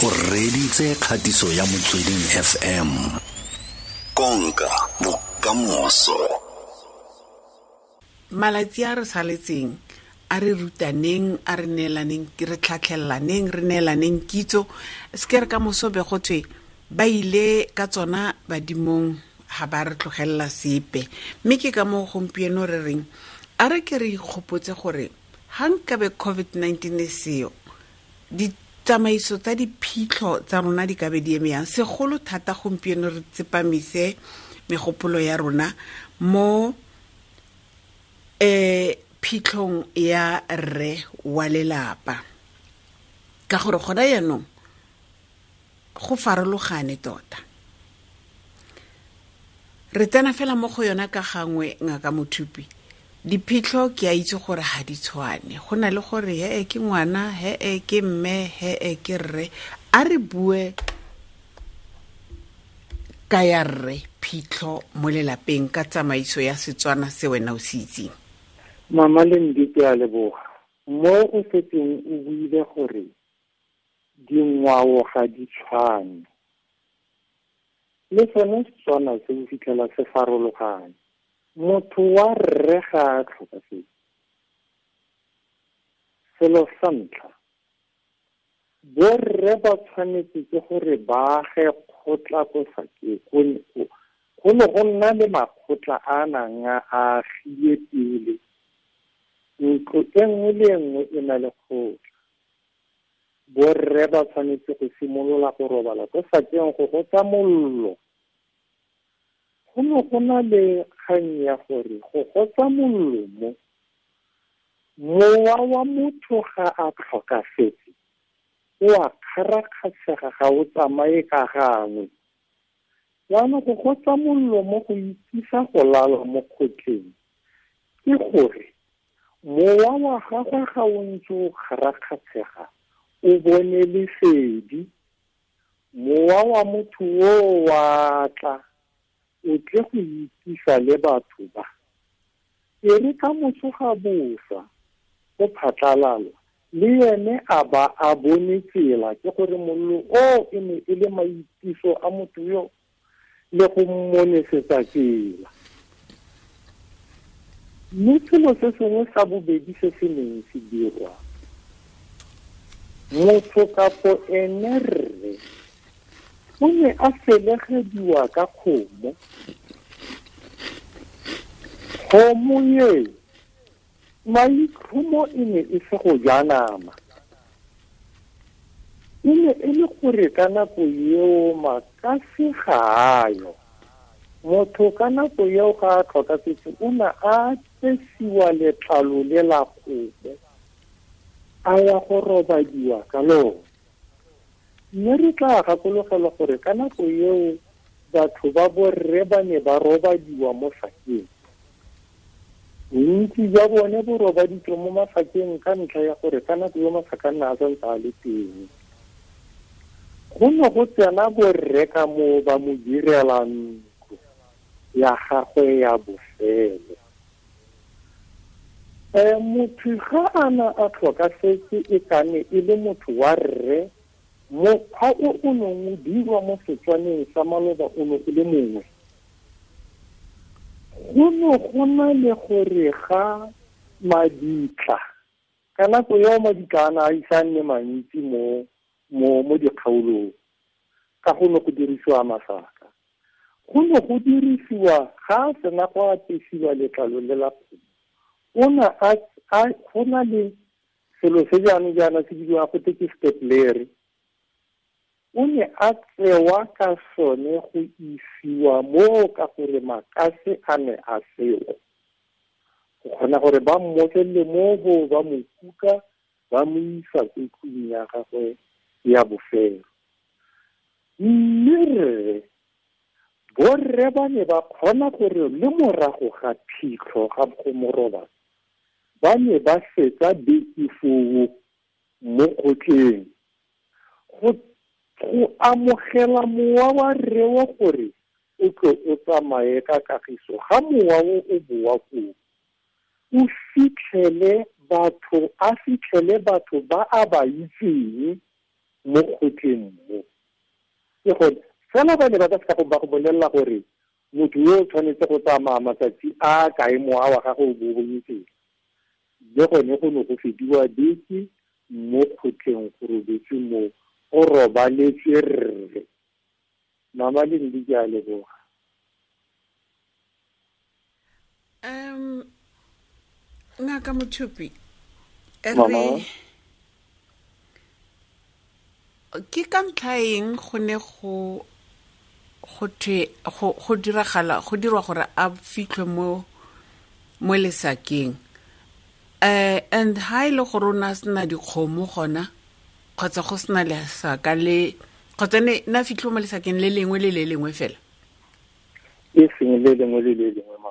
O reditse kgatiso ya Motsweding FM. Konka bokamoso. Malatsi a re saletseng a re rutaneng, a re neelaneng, re tlhatlhelaneng, re neelaneng kitso. Se ke re ka moso be go thwe ba ile ka tsona badimong, ga ba re tlogelela sepe. Mme ke ka moo gompieno re reng a re ke re ikgopotse gore ga nkabe COVID-19 e seo, ditsamaiso tsa diphitlho tsa rona di ka be di eme yang. Segolo thata gompieno re tsepamise megopolo ya rona mo phitlhong ya rre wa lelapa, ka gore gona jaanong go farologane tota. Re tsena fela mo go yona ka gangwe, Ngaka Mothupi. Diphitlho ke a itse gore ga di tshwane, go na le gore he ke ngwana, he ke mme, he ke rre. A re bue ka ya rre phitlho mo lelapeng ka tsamaiso ya Setswana se wena o se itseng. Mama Lendi, ke a leboga. Mo o setseng o buile gore dingwao ga di tshwane, le sone Setswana se o fitlhela se farologane. Motho wa rre ga a tlhokafetse, selo sa ntlha, borre ba tshwanetse ke gore ba age kgotla ko sakeng. Go ne go nna le makgotla a nang a agile pele. Ntlo e nngwe le e nngwe e na le kgotla. Borre ba tshwanetse go simolola go robala ko sakeng go gotsa mollo. Go ne go na le kgang ya gore go gotsa mollo mo, mowa wa motho ga a tlhokafetse o a kgarakgatshega, ga o tsamaye ka gangwe. Jaanong go gotsa mollo mo go itsisa go lala mo kgotleng, ke gore mowa wa gagwe ga o ntse o kgarakgatshega o bone lesedi. Mowa wa motho o wa tla, o tle go itsisa le batho ba. E re ka moso ga bosa go phatlalala, le ene a ba a bone tsela, ke gore mollo o e ne e le maitiso a motho yo le go mmonesetsa tsela. Mme selo se sengwe sa bobedi se se neng se dirwa, motho kapo ene rre o ne a felegediwa ka kgomo. Kgomo e maitlhomo e ne e se go ja nama, e ne e le gore ka nako eo makase ga a yo. Motho ka nako eo ga a tlhokafetse o ne a apesiwa letlalo le la kgomo, a ya go robadiwa ka lona. Mme re tla gakologelwa gore ka nako eo batho ba borre ba ne ba robadiwa mo sakeng. Bontsi jwa bone bo robaditswe mo masakeng ka ntlha ya gore ka nako eo masaka a nna a santse a le teng. Go ne go tsena borre ka moo ba mo direla ntlo ya gagwe ya bofelo. Motho ga a na a tlhokafetse e ka ne e le motho wa rre, mokgwa o o neng o dirwa mo Setswaneng sa maloba o ne o le mongwe. Go ne go na le gore ga mabitla, ka nako eo mabitla a ne a ise a nne mantsi mo dikgaolong, ka go ne go dirisiwa masaka. Go ne go dirisiwa ga a sena go apesiwa letlalo le la kgomo, o ne a go na le selo se jaanong jaana se bidiwang go twe ke stepladder. O ne a tsewa ka sone go isiwa moo ka gore makase a ne a seo. Go kgona gore ba mmotlelle mo bo ba mo kuka, ba mo isa ko tlung ya gagwe ya bofelo. Mme rre, borre ba ne ba kgona gore le morago ga phitlho ga go mo robatsa, ba ne ba fetsa beke foo mo kgotleng go amogela mowa wa rre wa gore o tlo o tsamaye ka kagiso. Ga mowa o o boa koo, o fitlhele batho, a fitlhele batho ba a ba itseng Mo kgotleng mo ke gone fela ba ne ba ka seka go ba go bolelela gore motho yo o tshwanetse go tsamaya matsatsi a kae mowa wa gagwe o bo bonyetseng. Le gone go ne go fediwa beke mo kgotleng, go robetswe mo, go robaletswe rre. Mama Lendi, ke a leboga. Ngaka Mothupi, Mama. re ke ka ntlha eng go ne go go thwe go go diragala go dirwa gore a fitlhwe mo mo lesakeng, and ha e le gore o ne a sena dikgomo gona kgotsa go sena lesaka le kgotsa ne na fitlhwe mo lesakeng le lengwe le le lengwe fela? E seng le lengwe le le lengwe, ma.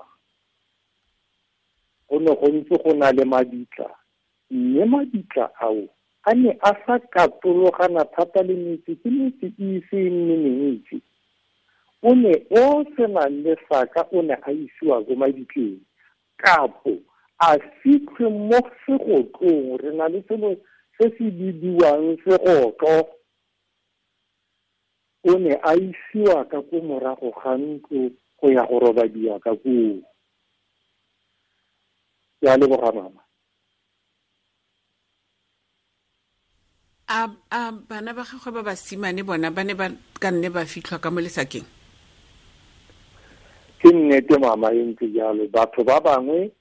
Go ne go ntse go na le mabitla, mme mabitla ao a ne a sa katologana thata le metse, ke metse e ise e nne mentsi. O ne o senang lesaka o ne a isiwa ko mabitleng, kapo a fitlhwe mo segotlong. Re na le selo se se bidiwang segotlo. O ne a isiwa ka ko morago ga ntlo go ya go robadiwa ka koo. Ke a leboga, mama. A bana ba gagwe ba basimane bona ba ne ba ka nne ba fitlhwa ka mo lesakeng? Ke nnete, mama, e ntse jalo. Batho ba bangwe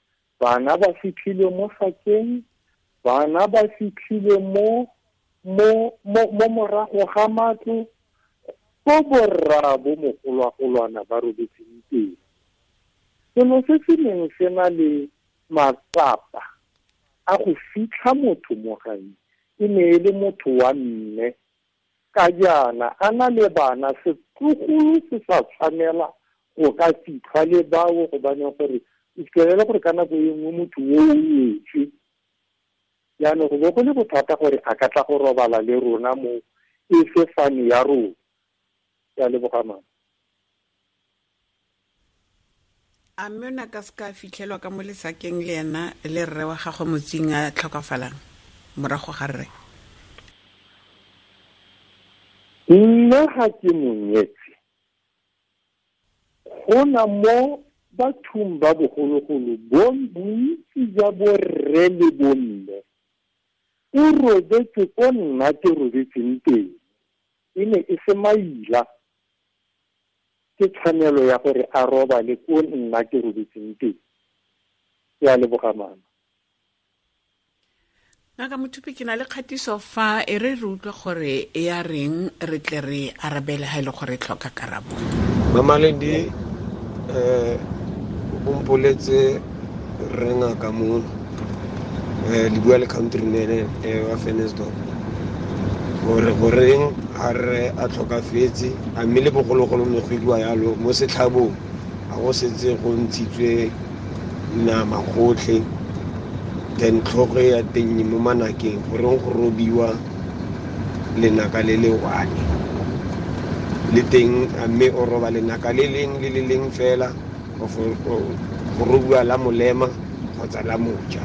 bana ba fitlhile mo sakeng, bana ba fitlhile mo mo mo mo morago ga matlo ko borra bo mogolwagolwana ba robetseng teng. Selo se se neng se na le matsapa a go fitlha motho mo gae e ne e le motho wa mme, ka jaana a na le bana, setlogolo se sa tshwanela go ka fitlhwa le bao, gobaneng gore o fitlhelele gore ka nako e nngwe motho o o nyetswe. Jaanong go bo go le bothata gore a ka tla go robala le rona mo e se fane ya rona. Ke a leboga, mama. A mme o ne a ka se ka fitlhelwa ka mo lesakeng le ena le rre wa gagwe motsing a tlhokafalang morago ga rre? Nna ga ke monyetse, go na mo bathong ba bogologolo bontsi jwa borre le bomme o robetse ko nna ke robetseng teng, e ne e se maila. Ke tshwanelo ya gore a robale ko nna ke robetseng teng. Ke a leboga, mama. Ngaka Mothupi, ke na le kgatiso fa e re re utlwe gore e ya reng, re tle re arabele ha e le gore e tlhoka karabo. Mama Lendi, o mpoletse rre ngaka mono, le bua le countryman, wa Ventersdorp, gore goreng a re a tlhokafetse, a mme le bogologolo ne go iriwa yalo mo setlhabong, a go setse go ntshitswe nama gotlhe, then tlhogo ya teng mo manakeng, goreng go robiwa lenaka le le one le teng, a mme o roba lenaka le leng le le leng fela, go robiwa la molema kgotsa la moja.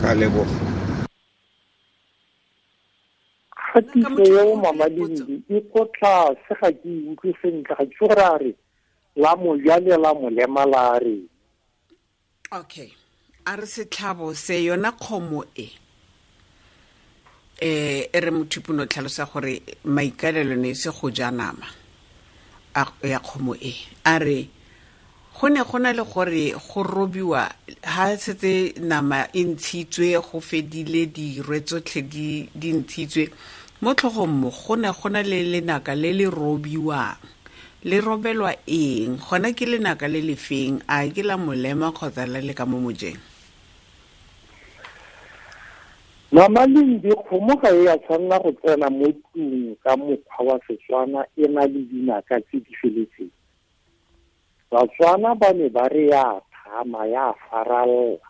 Ka leboga. Kgatiso eo, Mama Lendi, e ko tlase, ga ke e utlwe sentle, ga ke itse gore a re la moja le la molema la reng. Okay, a re setlhabo se yona kgomo e, e re Mothupi no tlhalosa gore maikaelelo ne se go ja nama ya kgomo e. A re go ne go na le gore go robiwa ha setse nama e ntshitswe, go fedile dirwe tsotlhe di ntshitswe mo tlhogong mo, go ne go na le lenaka le le robiwang. Le robelwa eng? Gona ke lenaka le le feng? A ke la molema kgotsa la le ka mo mojeng? Mama Lendi, kgomo ga e a tshwanela go tsena mo tlung ka mokgwa wa Setswana e na le dinaka tse di feletseng. Batswana ba ne ba re ya thama, ya faralla.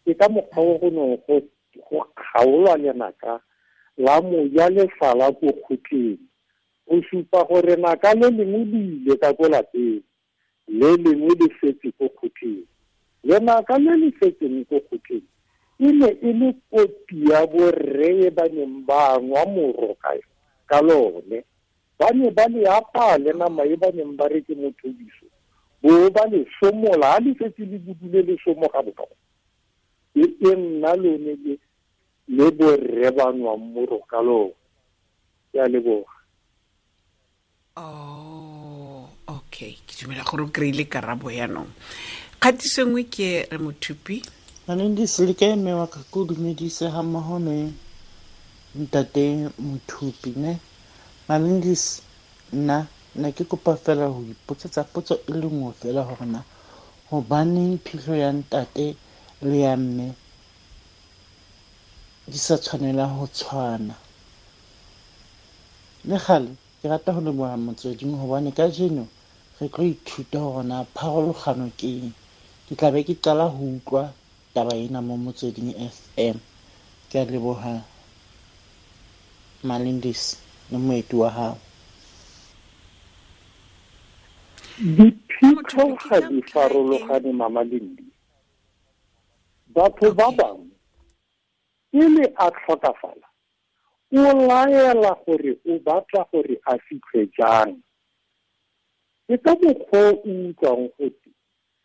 Ke ka mokgwa o go neng go kgaolwa lenaka la moja le sala ko kgotleng, go supa gore naka le lengwe le ile ka ko lapeng, le lengwe le setse ko kgotleng. Lenaka le le setseng ko kgotleng E ne e le kopi ya borre ba neng ba nwa moro ka lone. Ba ne ba le apaya le nama e ba neng ba re ke mothobiso, bo ba le somola, ha le setse le budule le somoga bonolo. E nna lone le borre ba nwang moro ka lone. Ke a leboga. Oh, okay. Ke dumela gore o kry-ile karabo yaanong. Kgatiso nngwe ke re Mothupi. Malindisi, le kae mme wa ka? Ke o dumedise ga mmogo le ntate Mothupi, ne? Malindisi, nna ne ke kopa fela go ipotsetsa potso e le nngwe fela gore na gobaneng phitlho ya ntate le ya mme di sa tshwanela go tshwana. Le gale ke rata go leboga motsweding gobane kajeno re tlo ithuta gore na pharologano ke eng. Ke tla be ke qala go utlwa taba ena mo Motsweding FM. Ke a leboga Malindisi le moeti wa gago. Diphitlho ga di farologane, Mama Lindi. Batho ba bangwe pele a tlhokafala o laela gore o batla gore a fitlhe jang. Ke ka mokgwa o utlwang gote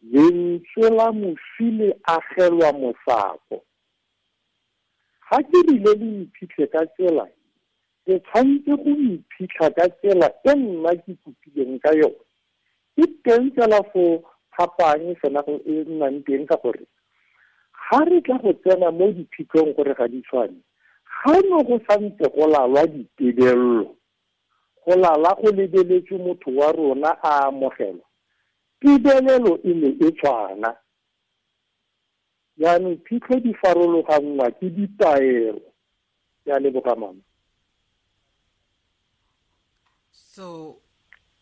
lentswe la moswi le agelwa mosako. Ga ke rile le mphitlhe ka tsela, ke tshwanetse go mphitlha ka tsela e nna ke kopileng ka yone. Ke teng fela fo phapang fela go e nnang teng, ka gore ga re tla go tsena mo diphitlhong gore ga di tshwane, ga no go santse go lalwa ditebello, go lala go lebeletswe motho wa rona a amogelwa, tebelelo e ne e tshwana. Jaanong phitlho di farologanngwa ke ditaelo. Ke a leboga, mama. So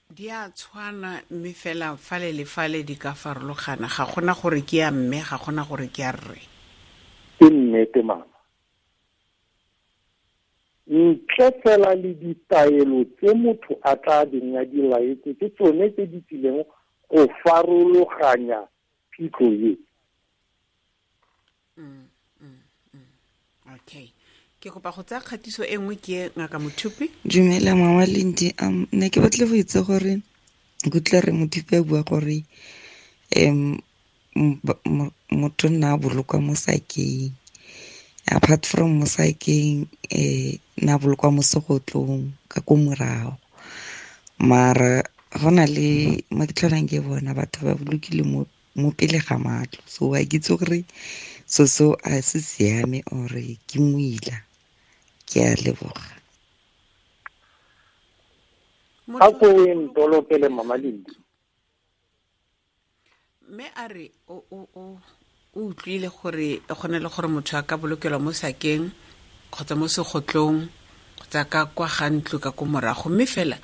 di a tshwana mme fela fale le fale di ka farologana, ga gona gore ke ya mme, ga gona gore ke ya rre. Ke nnete, mama. Ntle fela le ditaelo tse motho a tla beng a di laetse, ke tsone tse di tsileng go farologanya phitlho e. Okay. Ke kopa go tsaya kgatiso e nngwe ke Ngaka Mothupi. Dumela Mama Lindi, ne ke batla go itse gore ke utlwa re Mothupi a bua gore motho nna a bolokwa mo sakeng. Apart from mo sakeng, nna a bolokwa mo segotlong ka ko morago. Mara go na le mo ke tlholang ke bona batho ba bolokile mo pele ga matlo. So a ke itse gore so a se siame ore ke moila. Ke a leboga. A ko o ntolokele, Mama Lindi. Mme a re o utlwile gore go na le gore motho a ka bolokelwa mo sakeng kgotsa mo segotlong kgotsa ka kwa ga ntlo ka ko morago, mme fela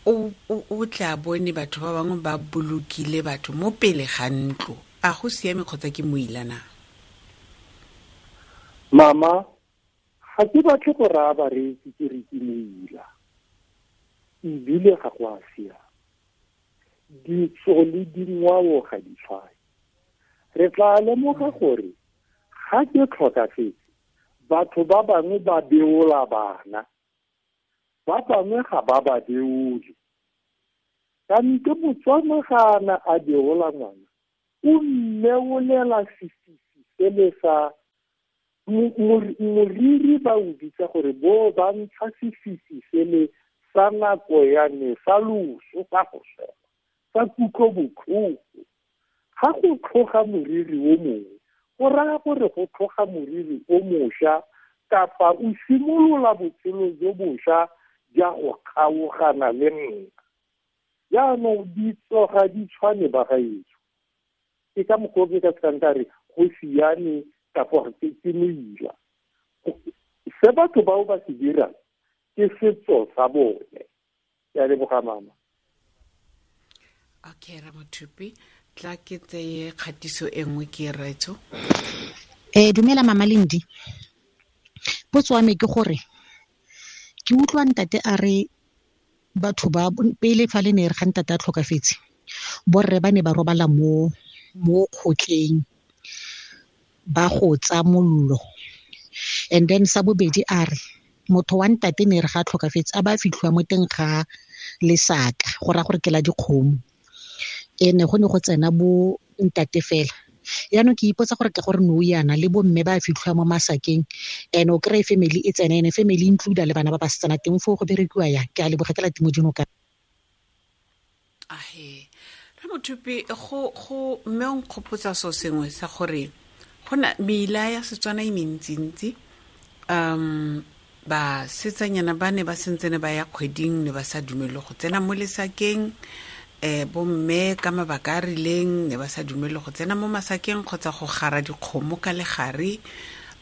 o tla bone batho ba bangwe ba bolokile batho mo pele ga ntlo. A go siame kgotsa ke moila na? Mama, ga ke batle go raya bareetsi ke re ke moila, ebile ga go a siama. Ditso le dingwao ga di tshwane. Re tla lemoga gore ga ke tlhokafetse, batho ba bangwe ba beola bana, ba bangwe ga ba ba beole. Kante Motswana ga a na a beola ngwana, o mmeolela sefisi sele sa moriri, ba o bitsa gore bo ba ntsha sefisi sele sa nako ya ne sa loso, sa go swela, sa kutlobotlhoko. Ga go tlhoga moriri o mongwe, go raya gore go tlhoga moriri o mošwa, kapa o simolola botshelo jo bošwa ja go kgaogana le nna. Jaanong ditso ga di tshwane, bagaetsho. Ke ka mokgwa o ke ka sekang ka re go siame kapa ke moila. Se batho bao ba se dirang ke setso sa bone. Ke a leboga, mama. Okay, Ramothupi, tla ke tseye kgatiso e nngwe ke raetso. Dumela Mama Lindi. Potso wa me ke gore ke utlwa ntate a re batho ba pele fa le ne re ga ntate a tlhokafetse, borre ba ne ba robala mo kgotleng, Ba go tsa mollo. And then sa bobedi a re motho wa ntate ne re ga tlhokafetse a ba fitlhiwa mo teng ga lesaka go raya gore ke la dikgomo. Ene go ne go tsena bo ntate fela. Yaanong ke ipotsa gore ke gore nou yana le bo mme ba fitlhiwa mo masakeng, and o kry-e family e tsena, ene family include le bana ba basetsana teng foo go berekiwa yang. Ke a leboga, ke la Timo Dinoka. Ahe re Mothupi, go mme o nkgopotsa so sengwe sa gore go na meila ya Setswana e mentsintsi. Basetsanyana ba ne ba sentsene ba ya kgweding, ne ba sa dumele go tsena mo lesakeng. Bomme ka mabaka a rileng ne ba sa dumele go tsena mo masakeng kgotsa go gara dikgomo ka legare,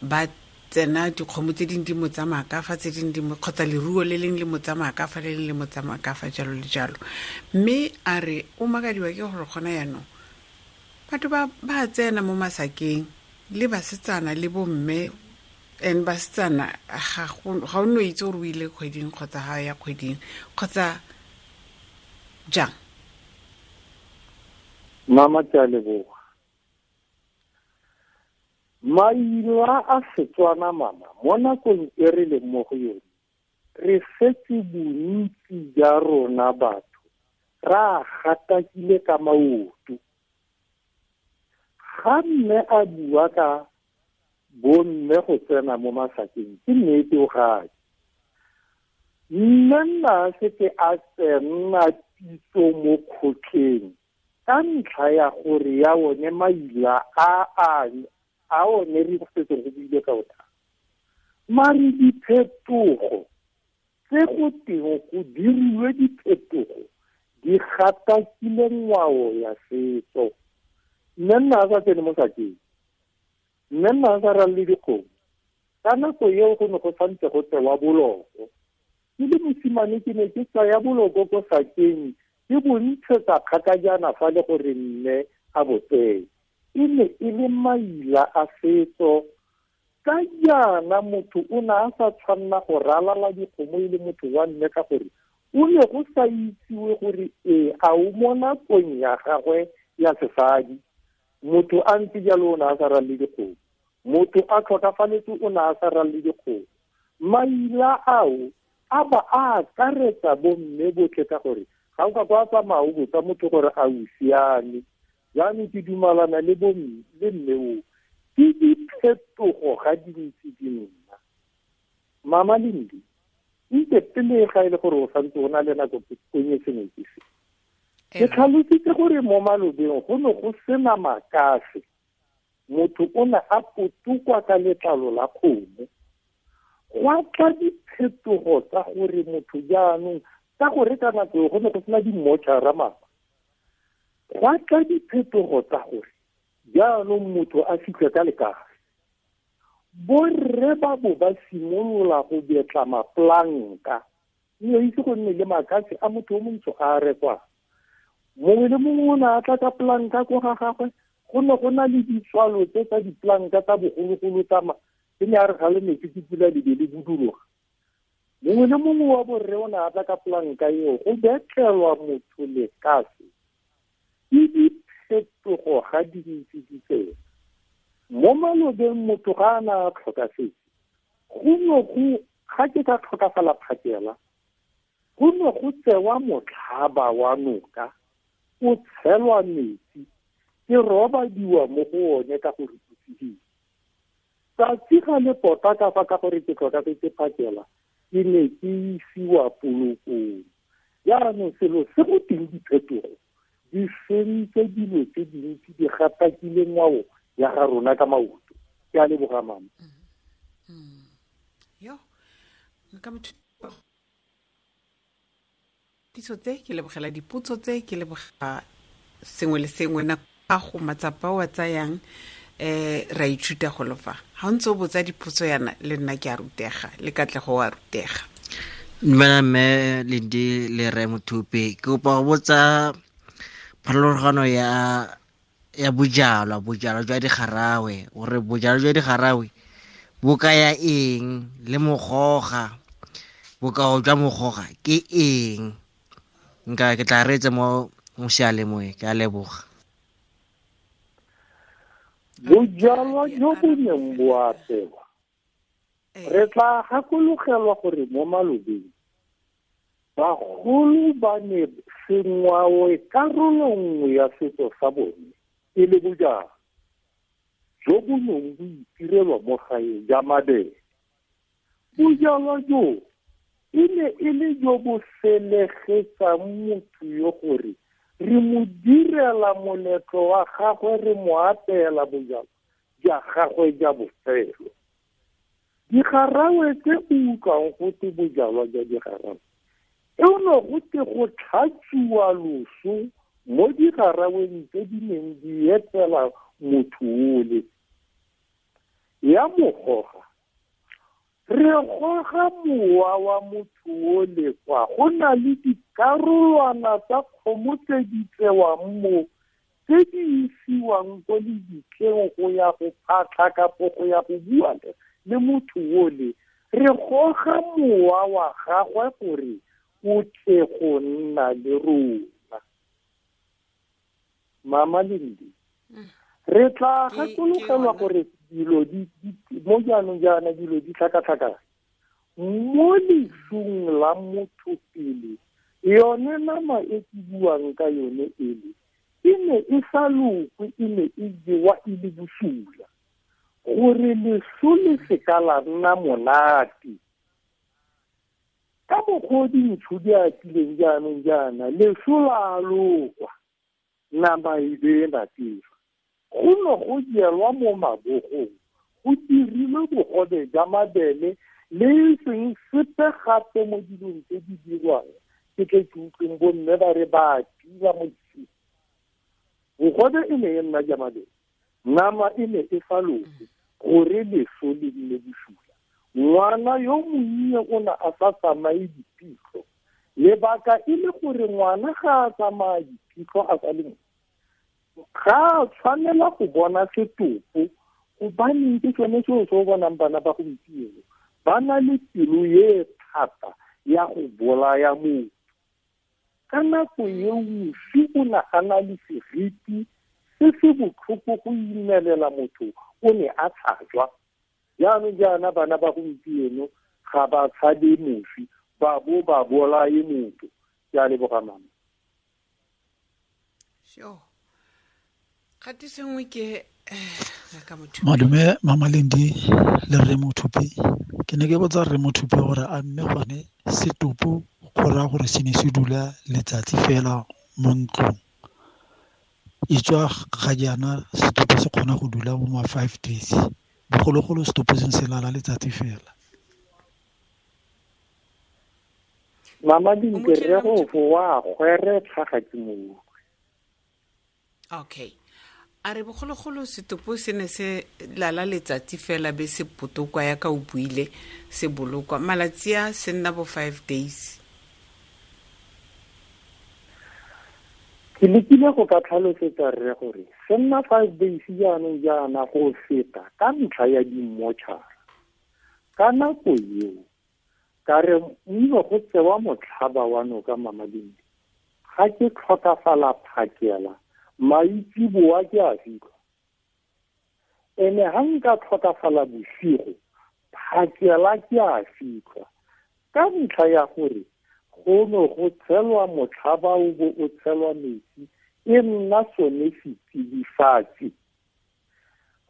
ba tsena dikgomo tse dingwe di mo tsamaya ka fa, tse dingwe di mo, kgotsa leruo le leng le mo tsamaya ka fa, le leng le mo tsamaya ka fa, jalo le jalo. Mme a re o makadiwa ke gore gona jaanong batho ba tsena mo masakeng le basetsana le bomme, and basetsana ga o no itse gore o ile kgweding kgotsa ga ya kgweding kgotsa jang. Mama, ke a leboga. Maina a Setswana, mama, mo nakong e re leng mo go yone, re setse bontsi ja rona batho ra gatakile ka maoto. Ga mme a bua ka bomme go tsena mo masakeng, ke nnete o gae. Mme nna setse a tsena pitso mo kgotleng ka ntlha ya gore ya one maila a one re setse go buile ka ona. Mare diphetogo tse go teng go diriwe diphetogo di gatakile ngwao ya setso. Mme nna a sa tsene mo sakeng, mme nna a sa ralle dikgomo. Ka nako eo go ne go santse go tsewa boloko. Ke le mosimane ke ne ke tsaya boloko ko sakeng, ke bo ntshetsa kgakajana fa le gore mme a bo tseye. E ne e le maila a setso. Ka jaana motho o ne a sa tshwanna go ralala dikgomo e le motho wa mme, ka gore o ne go sa itsiwe gore ee a o mo nakong ya gagwe ya sesadi. Motho a ntse jalo o ne a sa ralle dikgomo, motho a tlhokafaletse o ne a sa ralle dikgomo. Maila ao a ba a akaretsa bomme botlhe, ka gore ga o ka kwa tsamaya o botsa motho gore a o siame. Jaanong ke dumalana le bomme le mme o, ke diphetogo ga di ntse di nna. Mama Lindi, ntse pele ga e le gore o santse o na le nako ke konye sengwe ke se. Ke tlhalositse gore mo malobeng go ne go sena makase, motho o ne a potokwa ka letlalo la kgomo. Gwa tla diphetogo tsa gore motho jaanong, ka gore ka nako eo go ne go sena di-mortuary mama, gwa tla diphetogo tsa gore jaanong motho a fitlhe ka lekase. Borre ba bo ba simolola go betla mapolanka, mme itse go nne le makase a motho o montsho a a rekwang. Mongwe le mongwe o ne a tla ka polanka ko ga gagwe. Go ne go na le ditswalo tse tsa dipolanka tsa bogologolo tsa tse ne a re ga le metsi ke pula le be le buduloga. Mongwe le mongwe wa borre o ne a tla ka polanka eo go betlelwa motho lekase. Ke diphetogo ga di ntse di tsena. Mo malobeng motho ga a na a tlhokafetse, go ne go ga ke ka tlhokafala phakela, go ne go tsewa motlhaba wa noka, o tshelwa metsi, ke robadiwa mo go one ka gore o tsididi. Tsatsi ga le pota ka fa ka gore ke tlhokafetse phakela, ke ne ke isiwa polokong. Jaanong selo se go teng diphetogo di sentse dilo tse dintsi, di gatakile ngwao ya ga rona ka maoto. Ke a leboga, mama. Yo, nka motho ditso tse, ke lebogela dipotso tse, ke leboga sengwe le sengwe. Nako a go matsapa o a tsayang, ra ithuta go lofa. Ha o ntse o botsa dipotso yana, le nna ke a rutega, le Katlego wa rutega. Dumela mme Lindi le Rre Mothupi, ke kopa go botsa pharologano ya bojalwa, bojalwa jwa digarawe, gore bojalwa jwa digarawe bo kaya eng, le mogoga, bokao jwa mogoga ke eng. Nka ke tla reetsa mo seyalemoyeng. Ke a leboga. Bojalwa jo bo neng bo apewa, re tla gakologelwa gore mo malobeng bagolo ba ne sengwao karolo nngwe ya setso sa bone e le bojalwa jo bo neng bo itirelwa mo gae ja mabele. Bojalwa jo e ne e le jo bo felegetsang motho yo gore re mo direla moletlo wa gagwe, re mo apeela bojalwa ja gagwe ja bofelo. Digarawe tse o utlwang gote bojalwa jwa digarawe, e no gote go tlhatsiwa loso mo digaraweng tse di neng di etela motho ole. Ya mogoga, re goga mowa wa motho ole kwa go na le dikarolwana tsa kgomo tse di tsewang mo, tse di isiwang ko lebitleng go ya go phatlha kapo go ya go bua le motho ole. Re goga mowa wa gagwe gore o tle go nna le rona. Mama Lindi, re tla gakologelwa gore dilo di mo jaanong jaana dilo di tlhakatlhakana. Mo lesung la motho pele, yone nama e ke buang ka yone ele e ne e sa lokwe, e ne e jewa e le bosula, gore leso le seka la nna monate. Ka mokgwa o dintsho di atileng jaanong jaana, leso la lokwa, nama e be e natefa. Go ne go jelwa mo mabogong, go dirilwe bogobe jwa mabele le e seng sepe gape mo dilong tse di dirwang. Ke tle ke utlweng bomme ba re ba tila mo dising. Bogobe e ne e nna ja mabele, nama e ne e sa lokwe gore leso le nne bosula. Ngwana yo monnye o ne a sa tsamaye diphitlho, lebaka e le gore ngwana ga a tsamaya diphitlho a sa le mo, ga a tshwanela go bona setopo, gobaneng ke sone seo se o bonang bana ba gompieno ba na le pelo e thata ya go bolaya motho. Ka nako eo moswi o ne a na le seriti se se botlhoko go imelela motho, o ne a tshajwa. Jaanong jaana bana ba gompieno ga ba tshabe moswi, ba bo ba bolaye motho. Ke a leboga mama. Sure. Kgatiso nngwe ke ka motho. Madume Mama Lindi le Rre Mothupi. Ke ne ke botsa Rre Mothupi gore a mme gone setopo go raya gore se ne se dula letsatsi fela mo ntlong. E tswa ga jaana setopo se kgona go dula mo ma 5 days. Bogologolo setopo se se lala letsatsi fela. Mama Lindi, re go wa gweretlha ga ke mo utlwe. Okay. A re bogologolo setopo se ne se lala letsatsi fela be se potokwa ya ka o buile se bolokwa. Malatsi a se nna bo 5 days. Ke lekile go ka tlhalosetsa rre gore se nna 5 days jaanong jaana go feta ka ntlha ya dimmotšhara. Ka nako eo ka re mme go tsewa motlhaba wa noka Mama Lindi, ga ke tlhokafala phakela maitsiboa ke a fitlha. Ene ha nka tlhokafala bosigo, phakela ke a fitlha. Ka ntlha ya gore go ne go tshelwa motlhaba o bo o tshelwa metsi, e nna sone setsidifatsi.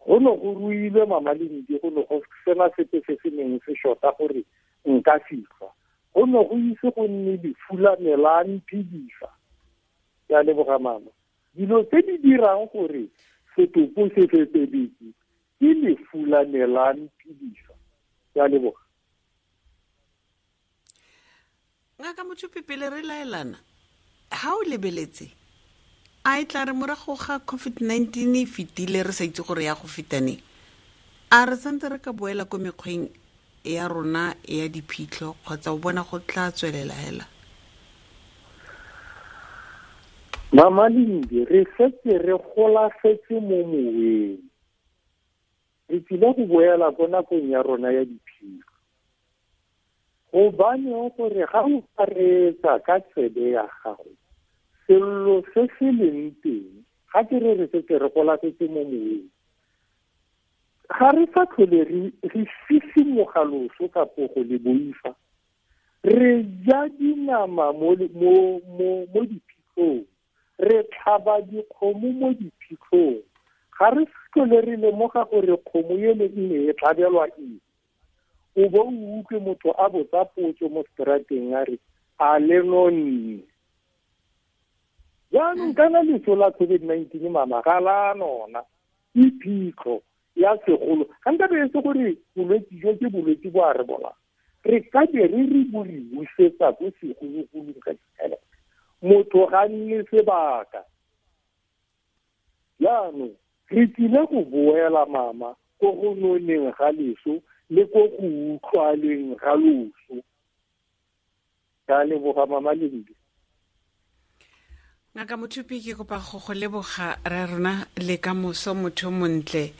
Go ne go ruilwe Mama Lindi, go ne go sena sepe se se neng se shota gore nka fitlha. Go ne go ise go nne lefu la me la mphedisa. Ke a leboga mama. Dilo tse di dirang gore setopo se fetebetse ke lefu la me la mphedisa. Ke a leboga. Ngaka Mothupi, pele re laelana, ha o lebeletse a e tla re morago ga COVID-19 e fetile re sa itse gore ya go feta neng, a re santse re ka boela ko mekgweng ya rona ya diphitlho kgotsa o bona go tla tswelela hela? Mama Lindi, re setse re golafetse mo moweng. Re tsile go boela ko nakong ya rona ya diphitlho. Gobaneng gore ga o ka reetsa ka tsebe ya gago, sello se se leng teng, ga ke re re setse re golafetse mo moweng, Ga re sa tlhole re sisimoga loso kapo go le boifa. Re ja dinama mo diphitlhong, re tlhaba dikgomo mo diphitlhong. Ga re tlhole re lemoga gore kgomo ele e ne e tlhabelwa eng. O bo o utlwe motho a botsa potso mo strateng a re, a le nonne? Jaanong kana leso la COVID-19 mama ga la nona, ke phitlho ya segolo. Ga nka be e se gore bolwetse jo ke bolwetse bo a re bola, re ka be re re bo re busetsa ko segologolong ka ditšhelete. Motho ga nne sebaka. Jaanong re tlile go boela mama ko go noneng ga leso le ko go utlwaleng ga loso. Ka leboga mama Lindi. Ngaka Mothupi, ke kopa go go leboga ra rona le ka moso, motho montle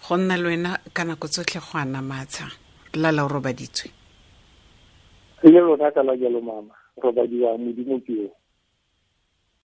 go nna le wena ka nako tsotlhe go ana matsha. Lala o robaditswe. Le lona ka la jalo mama, robadiwa Modimo ke yo.